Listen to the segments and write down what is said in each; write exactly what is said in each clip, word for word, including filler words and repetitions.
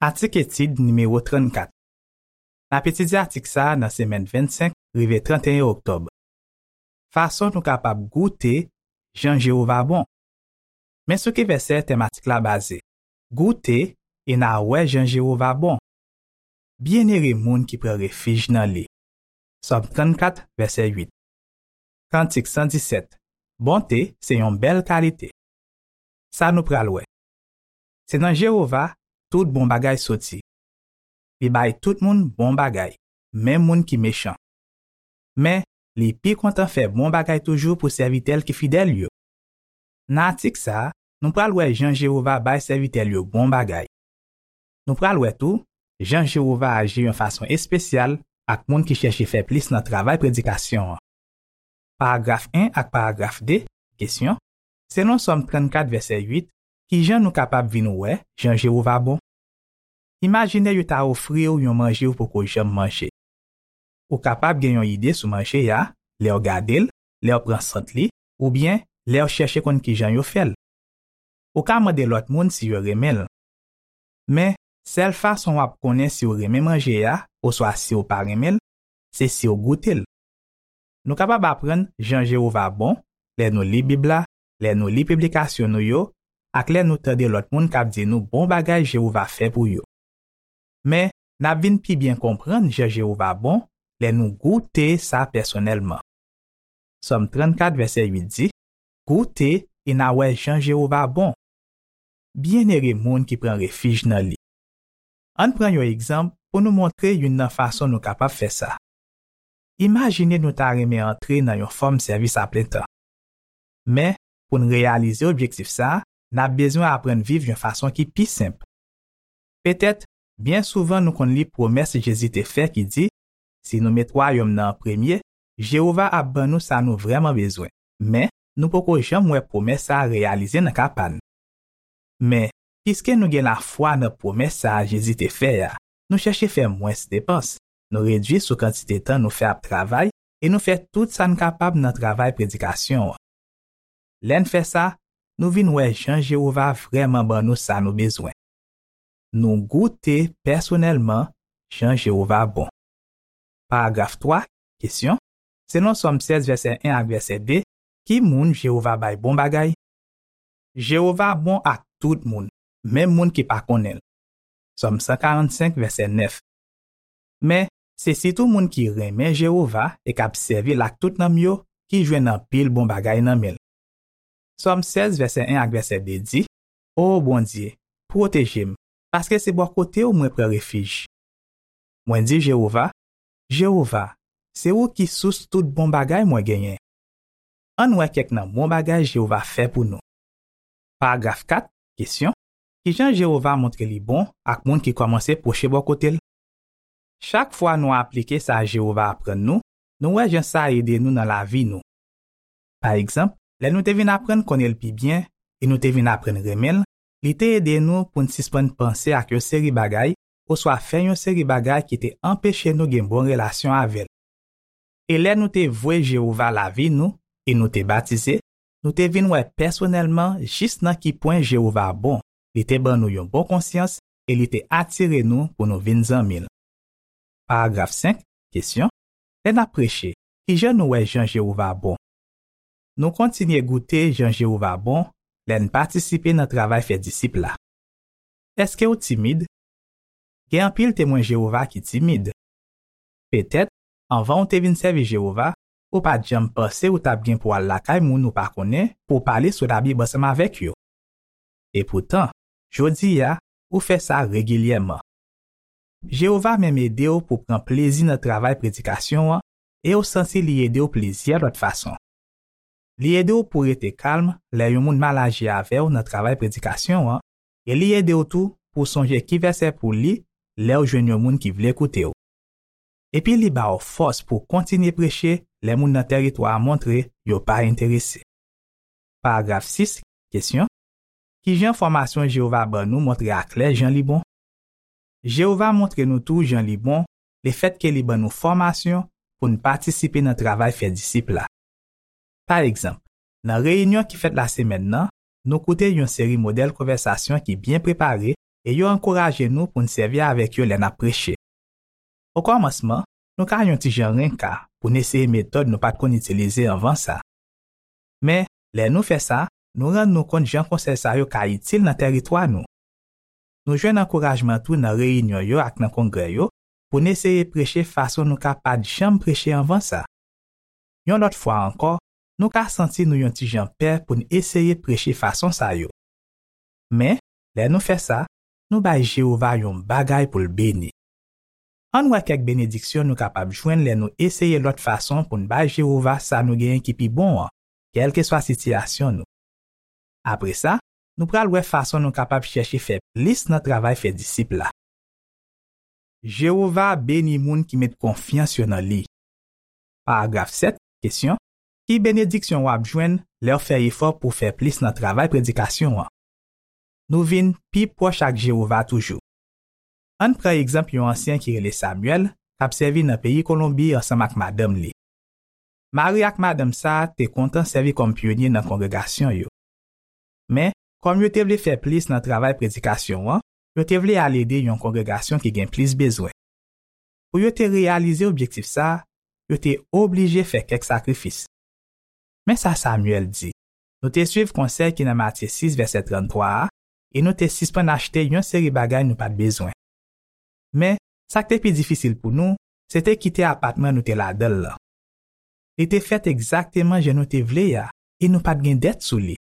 Atik etid nimewo trannkat. N ap etidye atik sa a nan semèn vennsenk rive trannteyen oktòb. Fason nou kapab goute jan Jewova bon. Men sou ki vèsè tèm atik la baze. Goute e n a wè jan Jewova bon. Byennere moun ki pran refij nan li. Sòm trannkat, vèsè uit. Kantik san disèt. Bonte se yon bèl kalite. Sa nou pral wè. Se nan Jewova tout bon bagay soti. Li bay tout moun bon bagay, menm moun ki mechan. Men, li pi kontan fè bon bagay toujou pou sèvitè l ki fidèl yo. Nan atik sa a, nou pral wè jan Jewova bay sèvitè l yo bon bagay. Nou pral wè tou jan Jewova aji yon fason espesyal ak moun ki chèche fè plis nan travay predikasyon an. Paragraf en ak paragraf de, kesyon, selon Sòm trannkat vèsè uit, ki jan nou kapab vin wè jan Jewova bon? Imajine yo ta ofri w yon manje w poko janm manje. Ou kapab gen yon ide sou manje a lè w gade l, lè w pran sant li, oubyen lè w chèche konn ki jan yo fè l. Ou ka mande lòt moun si yo renmen l. Men, sèl fason w ap konnen si w renmen manje a oswa si w pa renmen l, se si w goute l. Nou kapab aprann jan Jewova bon lè nou li Bib la, lè nou li piblikasyon nou yo, ak lè nou tande lòt moun k ap di nou bon bagay Jewova fè pou yo. Men, n ap vin pi byen konprann jan Jewova bon lè nou goute sa pèsonèlman. Sòm trannkat, vèsè uit di, goute e n a wè jan Jewova bon. Byennere moun ki pran refij nan li. Ann pran yon egzanp pou nou montre youn nan fason nou kapab fè sa. Imajine nou ta renmen antre nan yon fòm sèvis aplentan. Men, pou n reyalize objektif sa a, n ap bezwen aprann viv yon fason ki pi senp. Petèt, byen souvan nou konn li pwomès Jezi te fè ki di, si nou met wayòm nan an premye, Jewova ap ban nou sa nou vrèman bezwen. Men, nou poko janm wè pwomès sa a reyalize nan ka pa n. Men, piske nou gen lafwa nan pwomès sa a Jezi te fè a, nou chèche fè mwens depans, nou redui sou kantite tan nou fè ap travay e nou fè tout sa n kapab nan travay predikasyon an. Lè n fè sa, nou vin wè jan Jewova vrèman ban nou sa nou bezwen. Nou goute pèsonèlman jan Jewova bon. Paragraf twa, kesyon, selon Sòm sèz vèsè en ak vèsè de, ki moun Jewova bay bon bagay? Jewova bon ak tout moun, menm moun ki pa konnen l. Sòm san karannsenk, vèsè nèf. Men, se sitou moun ki renmen Jewova e k ap sèvi l ak tout nanm yo ki jwenn anpil bon bagay nan men l. Sòm sèz, vèsè en ak vèsè de di, O Bondye, pwoteje m, paske se bò kote w mwen pran refij. Mwen di Jewova, Jewova, se ou ki sous tout bon bagay mwen genyen. Ann wè kèk nan bon bagay Jewova fè pou nou. Paragraf kat, kesyon, ki jan Jewova montre li bon ak moun ki kòmanse pwoche bò kote l? Chak fwa nou aplike sa Jewova aprann nou, nou wè jan sa ede nou nan lavi nou. Pa egzanp, lè nou te vin aprann konnen l pi byen e nou te vin aprann renmen l, li te ede nou pou n sispann panse ak yon seri bagay oswa fè yon seri bagay ki te anpeche nou gen bon relasyon avè l. E lè nou te vwe Jewova lavi nou e nou te batize, nou te vin wè pèsonèlman jis nan ki pwen Jewova bon. Li te ban nou yon bon konsyans e li te atire nou pou nou vin zanmi l. Paragraf senk, kesyon, lè n ap preche, ki jan nou wè jan Jewova bon? Nou kontinye goute jan Jewova bon lè n patisipe nan travay fè disip la. Èske w timid? Gen anpil Temwen Jewova ki timid. Petèt, anvan w te vin sèvi Jewova, ou pa t janm panse ou t ap gen pou al lakay moun ou pa konnen pou w pale sou Labib ansanm avèk yo. Epoutan, jodi a, ou fè sa regilyèman. Jewova menm ede w pou w pran plezi nan travay predikasyon an e w santi li ede w plizyè lòt fason. Li ede w pou w rete kalm lè yon moun mal aji avè w nan travay predikasyon an, e li ede w tou pou w sonje ki vèsè pou w li lè w jwenn yon moun ki vle koute w. Epi li ba w fòs pou w kontinye preche lè moun nan tèritwa a montre yo pa enterese. Paragraf sis, kesyon, ki jan fòmasyon Jewova ban nou montre aklè jan li bon? Jewova montre nou tou jan li bon lefètke li ban nou fòmasyon pou n patisipe nan travay fè disip la. Pa egzanp, nan reyinyon ki fèt lasemèn nan, nou koute yon seri modèl konvèsasyon ki byen prepare e yo ankouraje nou pou n sèvi avèk yo lè n ap preche. Okòmansman, nou ka yon ti jan renka pou n eseye metòd nou pa t konn itilize anvan sa. Men, lè nou fè sa, nou rann nou kont jan konsèy sa yo ka itil nan tèritwa nou. Nou jwenn ankourajman tou nan reyinyon yo ak nan kongrè yo pou n eseye preche fason nou ka pa t janm preche anvan sa. Yon lòt fwa ankò, nou ka santi nou yon ti jan pè pou n eseye preche fason sa yo. Men, lè nou fè sa, nou bay Jewova yon bagay pou l beni. Ann wè kèk benediksyon nou kapab jwenn lè nou eseye lòt fason pou n bay Jewova sa nou genyen ki pi bon an, kèlkeswa sitiyasyon nou. Apre sa, nou pral wè fason nou kapab chèche fè plis nan travay fè disip la. Jewova beni moun ki met konfyans yo nan li. Paragraf sèt, kesyon: Ki benediksyon w ap jwenn lè w fè efò pou w fè plis nan travay predikasyon an? Nou vin pi pwòch ak Jewova toujou. Ann pran egzanp yon ansyen ki rele Samuel, k ap sèvi nan peyi Kolonbi ansanm ak madanm li. Mari ak madanm sa a te kontan sèvi kòm pyonye nan kongregasyon yo. Men, kòm yo te vle fè plis nan travay predikasyon an, yo te vle al ede yon kongregasyon ki gen plis bezwen. Pou yo te reyalize objektif sa a, yo te oblije fè kèk sakrifis. Men sa Samuel di: Nou te suiv konsèy ki nan Matye sis vèsè tranntwa a, e nou te sispann achte yon seri bagay nou pa t bezwen. Men, sa k te pi difisil pou nou, se te kite apatman nou te ladan l lan. Li te fèt egzakteman jan nou te vle a, e nou pa t gen dèt sou li.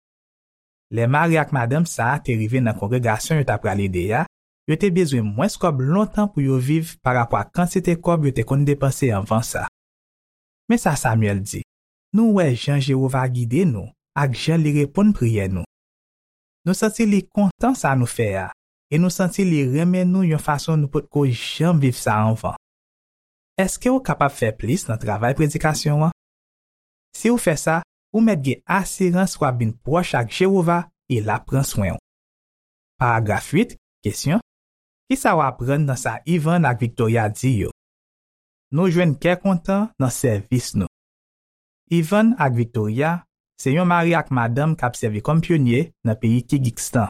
Lè mari ak madanm sa a te rive nan kongregasyon yo t ap pral ede a, yo te bezwen mwens kòb lontan pou yo viv parapò ak kantite kòb yo te konn depanse anvan sa. Men sa Samuel di: Nou wè jan Jewova gide nou ak jan li reponn priyè nou. Nou santi li kontan sa nou fè a, e nou santi li renmen nou yon fason nou potko janm viv sa anvan. Èske w kapab fè plis nan travay predikasyon an? Si w fè sa, ou mèt gen asirans w ap vin pwòch ak Jewova e l ap pran swen w. Paragraf uit, kesyon: Ki sa w aprann nan sa Ivan ak Victoria di yo? Nou jwenn kè kontan nan sèvis nou. Ivan ak Victoria se yon mari ak madanm k ap sèvi kòm pyonye nan peyi Kigikstan.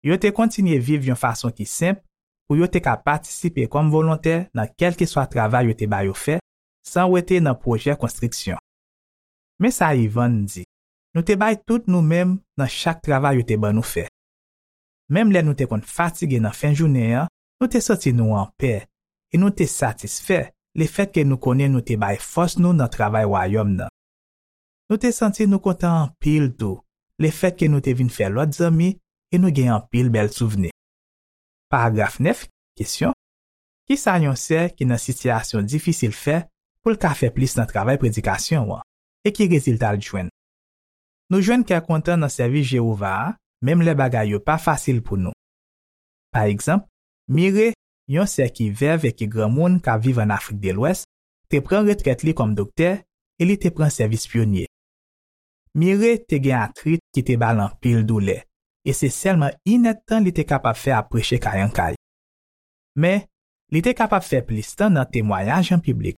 Yo te kontinye viv yon fason ki senp pou yo te ka patisipe kòm volontè nan kèlkeswa travay yo te ba yo fè, san wete nan pwojè konstriksyon. Men sa Ivan di: Nou te bay tout nou menm nan chak travay yo te ban nou fè. Menm lè nou te konn fatige nan fen jounen an, nou te santi nou anpè e nou te satisfè lefètke nou konnen nou te bay fòs nou nan travay Wayòm nan. Nou te santi nou kontan anpil tou lefètke nou te vin fè lòt zanmi e nou gen anpil bèl souvni. Paragraf nèf, kesyon: Ki sa yon sè ki nan sitiyasyon difisil fè pou l ka fè plis nan travay predikasyon an, e ki rezilta l jwenn? Nou jwenn kè kontan nan sèvis Jewova a, menm lè bagay yo pa fasil pou nou. Pa egzanp, Mire, yon sè ki vèv e ki granmoun k ap viv ann Afrik de Lwès, te pran retrèt li kòm doktè e li te pran sèvis pyonye. Mire te gen atrit ki te ba l anpil doulè, e se sèlman inèdtan li te kapab fè ap preche kay an kay. Men, li te kapab fè plis tan nan temwayaj an piblik.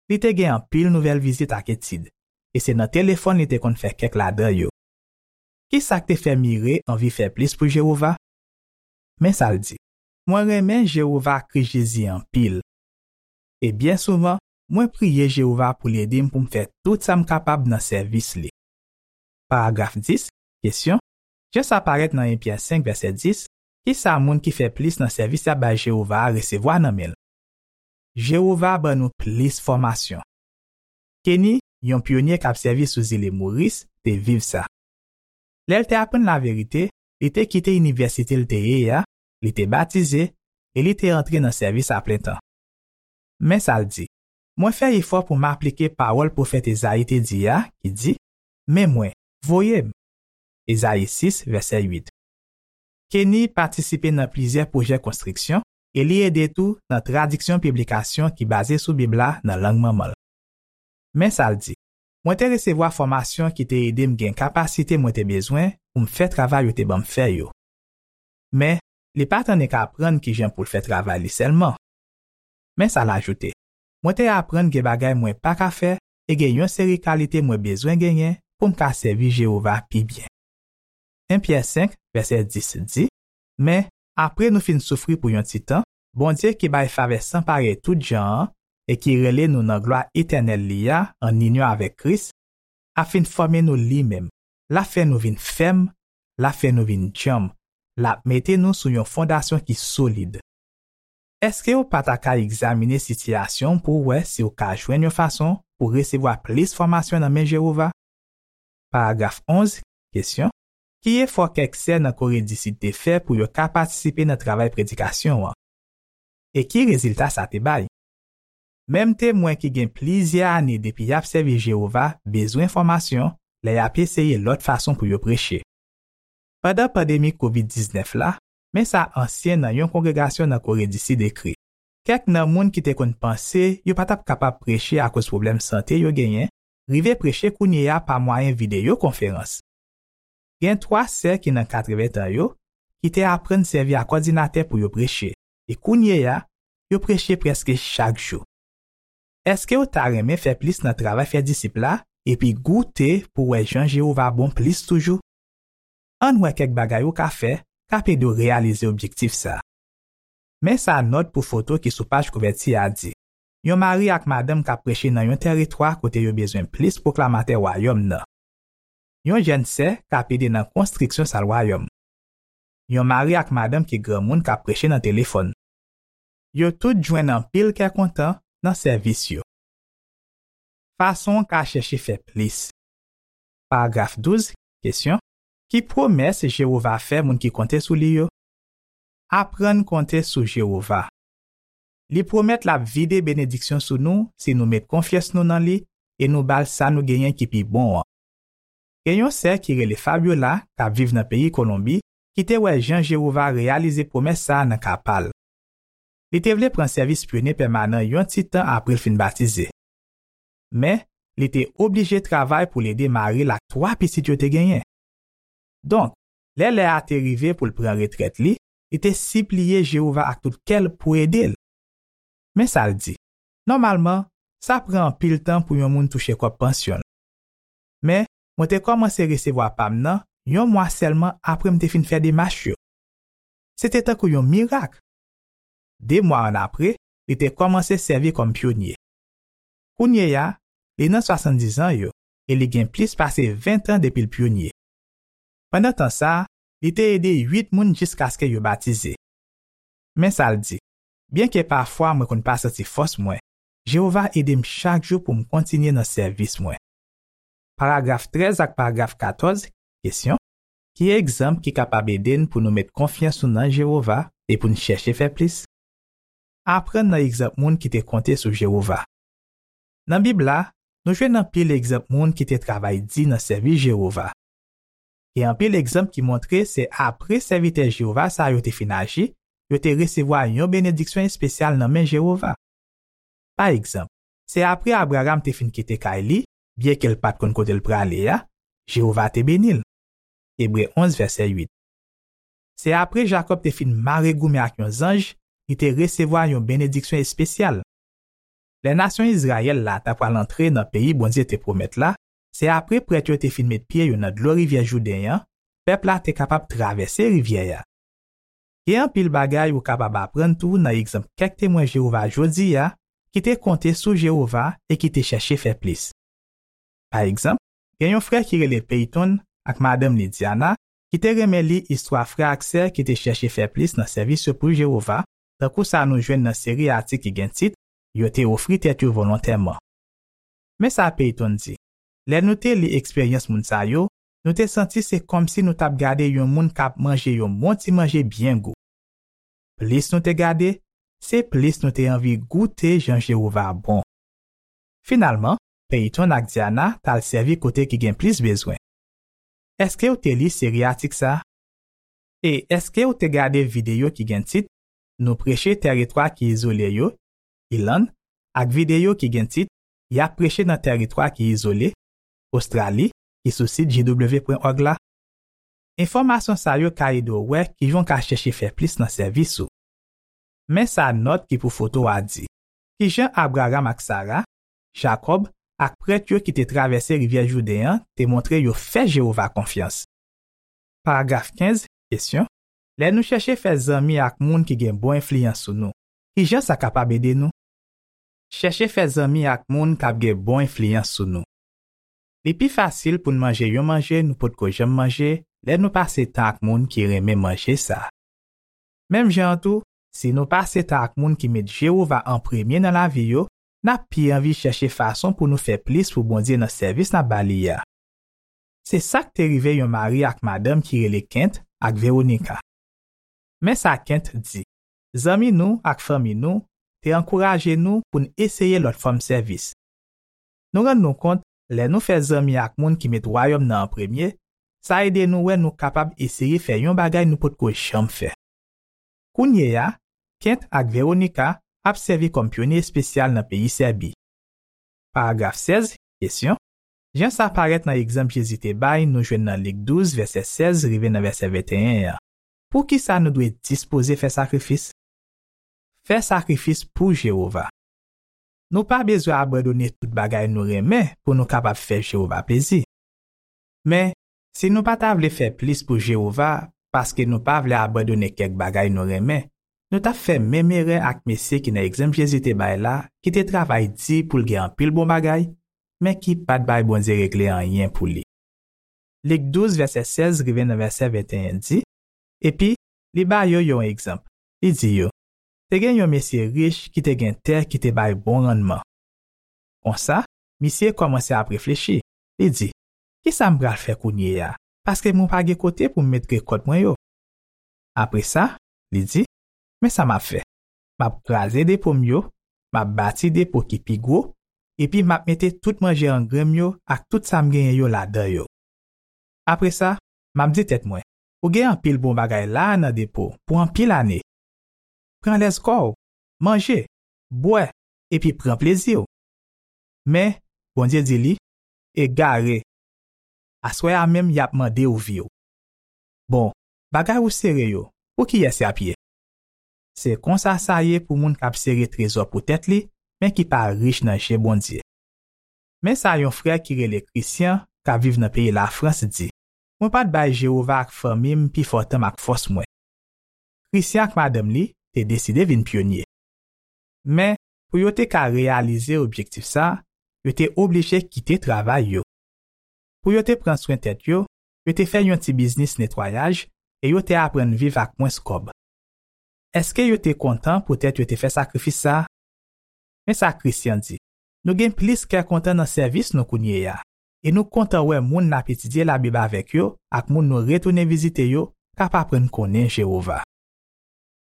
Li te gen anpil nouvèl vizit ak etid, e se nan telefòn li te konn fè kèk ladan yo. Ki sa k te fè Mire anvi fè plis pou Jewova? Men sa l di: Mwen renmen Jewova ak Kris Jezi anpil. E byen souvan, mwen priye Jewova pou l ede m pou m fè tout sa m kapab nan sèvis li. Paragraf dis, kesyon: Jan sa parèt nan en Pyè senk vèsè dis, ki sa moun ki fè plis nan sèvis y ap bay Jewova a resevwa nan men l? Jewova ban nou plis fòmasyon. Kenny, yon pyonye k ap sèvi sou zile Moris, te viv sa. Lè l te aprann laverite, li te kite inivèsite l te ye a, li te batize, e li te antre nan sèvis aplentan. Men sa l di: Mwen fè efò pou m aplike pawòl pwofèt Ezayi te di a, ki di: Men mwen, voye m. Ezayi sis, vèsè uit. Kenny patisipe nan plizyè pwojè konstriksyon e li ede tou nan tradiksyon piblikasyon ki baze sou Bib la nan lang manman l. Men sa l di: Mwen te resevwa fòmasyon ki te ede m gen kapasite mwen te bezwen pou m fè travay yo te ban m fè yo. Men, li pa t annik aprann kijan pou l fè travay li sèlman. Men sa l ajoute: Mwen te aprann gen bagay mwen pa ka fè e gen yon seri kalite mwen bezwen genyen pou m ka sèvi Jewova pi byen. En Pyè senk, vèsè dis di: Men, apre nou fin soufri pou yon ti tan, Bondye ki bay favè san parèy tout jan an e ki rele nou nan glwa etènèl li a ann inyon avèk Kris, ap fin fòme nou li menm. L ap fè nou vin fèm, l ap fè nou vin djanm, l ap mete nou sou yon fondasyon ki solid. Èske w pa ta ka egzamine sitiyasyon w pou w wè si w ka jwenn yon fason pou w resevwa plis fòmasyon nan men Jewova? Paragraf onz, kesyon, ki efò kèk sè nan Kore di Sid te fè pou yo ka patisipe nan travay predikasyon an? E ki rezilta sa te bay? Menm Temwen ki gen plizyè ane depi y ap sèvi Jewova bezwen fòmasyon lè y ap eseye lòt fason pou yo preche. Pandan pandemi kovid diznèf la, men sa ansyen nan yon kongregasyon nan Kore di Sid ekri: Kèk nan moun ki te konn panse yo pa t ap kapab preche akoz pwoblèm sante yo genyen, rive preche kounye a pa mwayen videyo konferans. Gen twa sè ki nan katreven tan yo ki te aprann sèvi ak òdinatè pou yo preche, e kounye a, yo preche prèske chak jou. Èske w ta renmen fè plis nan travay fè disip la epi goute pou w wè jan Jewova bon plis toujou? Ann wè kèk bagay ou ka fè k ap ede w reyalize objektif sa a. Men sa nòt pou foto ki sou paj kouvèti a di: Yon mari ak madanm k ap preche nan yon tèritwa kote yo bezwen plis pwoklamatè Wayòm nan. Yon jèn sè k ap ede nan konstriksyon Sal Wayòm. Yon mari ak madanm ki granmoun k ap preche nan telefòn. Yo tout jwenn anpil kè kontan nan sèvis yo. Fason w ka chèche fè plis. Paragraf douz, kesyon, ki pwomès Jewova fè moun ki konte sou li yo? Aprann konte sou Jewova. Li pwomèt l ap vide benediksyon sou nou si nou met konfyans nou nan li e nou ba l sa nou genyen ki pi bon an. Gen yon sè ki rele Fabiola, k ap viv nan peyi Kolonbi, ki te wè jan Jewova reyalize pwomès sa a nan ka pa l. Li te vle pran sèvis pyonye pèmanan yon ti tan apre l fin batize. Men, li te oblije travay pou l ede mari l ak twa pitit yo te genyen. Donk, lè lè a te rive pou l pran retrèt li, li te sipliye Jewova ak tout kè l pou ede l. Men sa l di: Nòmalman, sa pran anpil tan pou yon moun touche kòb pansyon l. Men, mwen te kòmanse resevwa pa m nan yon mwa sèlman apre m te fin fè demach yo. Se te tankou yon mirak. De mwa annapre, li te kòmanse sèvi kòm pyonye. Kounye a, li nan swasanndizan yo e li gen plis pase ven tan depi l pyonye. Pandan tan sa a, li te ede uit moun jiskaske yo batize. Men sa l di: Byenke pafwa mwen konn pa santi fòs mwen, Jewova ede m chak jou pou m kontinye nan sèvis mwen. Paragraf trèz ak paragraf katòz, kesyon, ki egzanp ki kapab ede n pou nou met konfyans nou nan Jewova e pou n chèche fè plis? Aprann nan egzanp moun ki te konte sou Jewova. Nan Bib la, nou jwenn anpil egzanp moun ki te travay di nan sèvis Jewova. Gen anpil egzanp ki montre se apre sèvitè Jewova sa yo te fin aji, yo te resevwa yon benediksyon espesyal nan men Jewova. Pa egzanp, se apre Abraram te fin kite kay li, byenke l pa t konn kote l prale a, Jewova te beni l. Ebre onz, vèsè uit. Se apre Jakòb te fin mare goumen ak yon zanj, li te resevwa yon benediksyon espesyal. Lè nasyon Izrayèl la ta pral antre nan peyi Bondye te pwomèt la, se apre prèt yo te fin met pye yo nan dlo rivyè Jouden an, pèp la te kapab travèse rivyè a. Gen anpil bagay ou kapab aprann tou nan egzanp kèk Temwen Jewova jodi a ki te konte sou Jewova e ki te chèche fè plis. Pa egzanp, gen yon frè ki rele Peyton ak madanm li Diana ki te renmen li istwa frè ak sè ki te chèche fè plis nan sèvis yo pou Jewova, tankou sa nou jwenn nan seri atik ki gen tit Yo te ofri tèt yo volontèman. Men sa Peyton di: Lè nou te li eksperyans moun sa yo, nou te santi se kòmsi nou t ap gade yon moun k ap manje yon bon ti manje byen gou. Plis nou te gade, se plis nou te anvi goute jan Jewova bon. Finalman, Peyton ak Diana t al sèvi kote ki gen plis bezwen. Èske w te li seri atik sa a? E èske w te gade videyo ki gen tit Nou preche tèritwa ki izole yo, Ilann, ak videyo ki gen tit Y ap preche nan tèritwa ki izole, Ostrali, ki sou sit J W pwen org la? Enfòmasyon sa yo ka ede w wè kijan w ka chèche fè plis nan sèvis ou. Men sa nòt ki pou foto a di: Kijan Abraram ak Sara, Jakòb, ak prèt yo ki te travèse rivyè Jouden an te montre yo fè Jewova konfyans? Paragraf kenz, kesyon: Lè nou chèche fè zanmi ak moun ki gen bon enfliyans sou nou, ki jan sa kapab ede nou? Chèche fè zanmi ak moun k ap gen bon enfliyans sou nou. Li pi fasil pou n manje yon manje nou potko janm manje lè nou pase tan ak moun ki renmen manje sa a. Menm jan an tou, si nou pase tan ak moun ki met Jewova an premye nan lavi yo, n ap pi anvi chèche fason pou nou fè plis pou Bondye nan sèvis n ap ba li a. Se sa k te rive yon mari ak madanm ki rele Kent ak Veronika. Men sa Kent di: Zanmi nou ak fanmi nou te ankouraje nou pou n eseye lòt fòm sèvis. Nou rann nou kont, lè nou fè zanmi ak moun ki met Wayòm nan an premye, sa ede nou wè nou kapab eseye fè yon bagay nou potko janm fè. Kounye a, Kent ak Veronika ap sèvi kòm pyonye espesyal nan peyi Sèbi. Paragraf sèz, kesyon: Jan sa parèt nan egzanp Jezi te bay nou jwenn nan Lik douz, vèsè sèz rive nan vèsè venteyen an, poukisa nou dwe dispoze fè sakrifis? Fè sakrifis pou Jewova. Nou pa bezwen abandone tout bagay nou renmen pou nou kapab fè Jewova plezi. Men, si nou pa ta vle fè plis pou Jewova paske nou pa vle abandone kèk bagay nou renmen, nou t ap fè menm erè ak mesye ki nan egzanp Jezi te bay la, ki te travay di pou l gen anpil bon bagay, men ki pa t bay Bondye regle anyen pou li. Lik douz, vèsè sèz rive nan vèsè venteyen di: Epi, li ba yo yon egzanp. Li di yo: Te gen yon mesye rich ki te gen tè ki te bay bon rannman. Konsa, misye kòmanse ap reflechi. Li di: Ki sa m pral fè kounye a? Paske mwen pa gen kote pou m met rekòt mwen yo. Apre sa, li di: Men sa m ap fè. M ap kraze depo m yo, m ap bati depo ki pi gwo, epi m ap mete tout manje angren m yo ak tout sa m genyen yo ladan yo. Apre sa, m ap di tèt mwen: Ou gen anpil bon bagay la a nan depo pou anpil ane. Pran lèz kò w, manje, bwè, epi pran plezi w. Men, Bondye di li: Egare! Aswè a menm y ap mande w vi w. Bon, bagay ou sere yo, pou kiyès y ap ye? Se konsa sa ye pou moun k ap sere trezò pou tèt li, men ki pa rich nan je Bondye. Men sa yon frè ki rele Christian, k ap viv nan peyi Lafrans, di: Mwen pa t bay Jewova ak fanmi m pifò tan m ak fòs mwen. Christian ak madanm li te deside vin pyonye. Men, pou yo te ka reyalize objektif sa a, yo te oblije kite travay yo. Pou yo te pran swen tèt yo, yo te fè yon ti biznis netwayaj e yo te aprann viv ak mwens kòb. Èske yo te kontan poutèt yo te fè sakrifis sa a? Men sa Christian di: Nou gen plis kè kontan nan sèvis nou kounye a, e nou kontan wè moun n ap etidye Labib avèk yo ak moun nou retounen vizite yo k ap aprann konnen Jewova.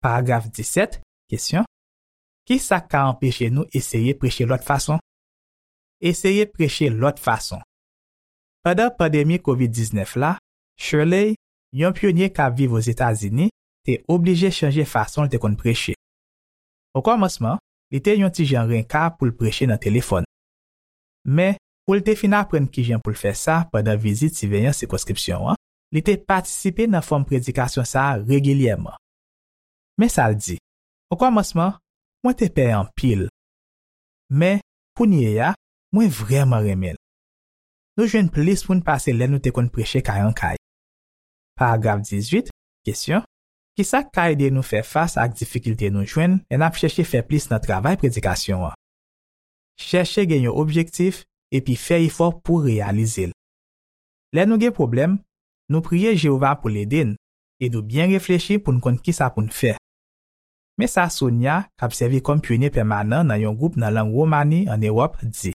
Paragraf disèt, kesyon: Ki sa k ka anpeche nou eseye preche lòt fason? Eseye preche lòt fason. Pandan pandemi kovid diznèf la, Shirley, yon pyonye k ap viv Ozetazini, te oblije chanje fason l te konn preche. Okòmansman, li te yon ti jan renka pou l preche nan telefòn. Men, pou l te fin aprann kijan pou l fè sa pandan vizit siveyan sikonskripsyon an, li te patisipe nan fòm predikasyon sa a regilyèman. Men sa l di: Okòmansman, mwen te pè anpil. Men, kounye a, mwen vrèman renmen l. Nou jwenn plis moun pase lè nou te konn preche kay an kay. Paragraf dizuit, kesyon: Ki sa k ka ede nou fè fas ak difikilte nou jwenn lè n ap chèche fè plis nan travay predikasyon an? Chèche gen yon objektif epi fè efò pou reyalize l. Lè nou gen pwoblèm, nou priye Jewova pou l ede n e nou byen reflechi pou n konn ki sa pou n fè. Men sa Sonia, k ap sèvi kòm pyonye pèmanan nan yon gwoup nan lang Womani ann Ewòp, di: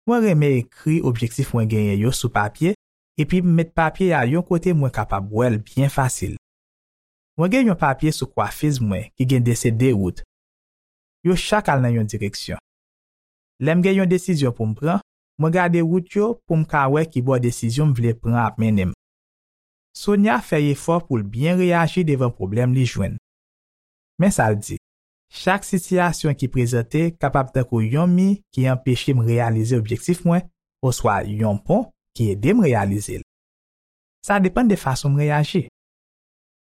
Mwen renmen ekri objektif mwen genyen yo sou papye epi m met papye a yon kote mwen kapab wè l byen fasil. Mwen gen yon papye sou kwafiz mwen ki gen desen de wout. Yo chak al nan yon direksyon. Lè m gen yon desizyon pou m pran, mwen gade wout yo pou m ka wè ki bò desizyon m vle pran ap mennen m. Sonia fè efò pou l byen reyaji devan pwoblèm li jwenn. Men sa l di: Chak sitiyasyon ki prezante kapab tankou yon mi ki anpeche m reyalize objektif mwen, oswa yon pon ki ede m reyalize l. Sa depann de fason m reyaji.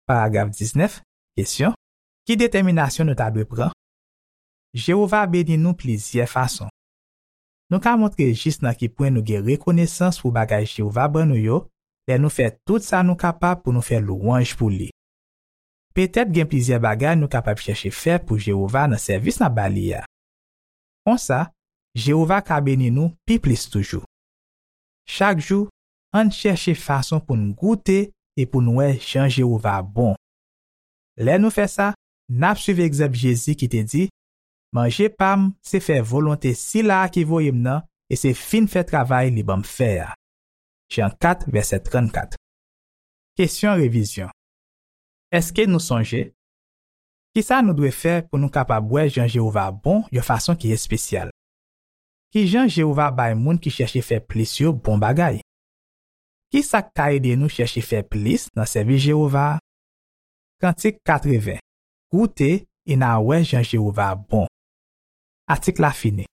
Paragraf diznèf, kesyon: Ki detèminasyon nou ta dwe pran? Jewova beni nou plizyè fason. Nou ka montre jis nan ki pwen nou gen rekonesans pou bagay Jewova ban nou yo lè nou fè tout sa nou kapab pou nou fè lwanj pou li. Petèt gen plizyè bagay nou kapab chèche fè pou Jewova nan sèvis n ap ba li a. Konsa, Jewova ka beni nou pi plis toujou. Chak jou, ann chèche fason pou n goute e pou n wè jan Jewova bon. Lè nou fè sa, n ap suiv egzanp Jezi ki te di, "Manje pa m se fè volonte Sila a ki voye m nan e se fin fè travay li ban m fè a." Jan kat, vèsè trannkat. Kesyon revizyon. Èske nou sonje? Kisa nou dwe fè pou nou kapab wè jan Jewova bon yon fason ki espesyal? Ki jan Jewova bay moun ki chèche fè plis yo bon bagay? Kisa k ka ede nou chèche fè plis nan sèvis Jewova a? Kantik katreven. Goute e n a wè jan Jewova bon. Atik la fini.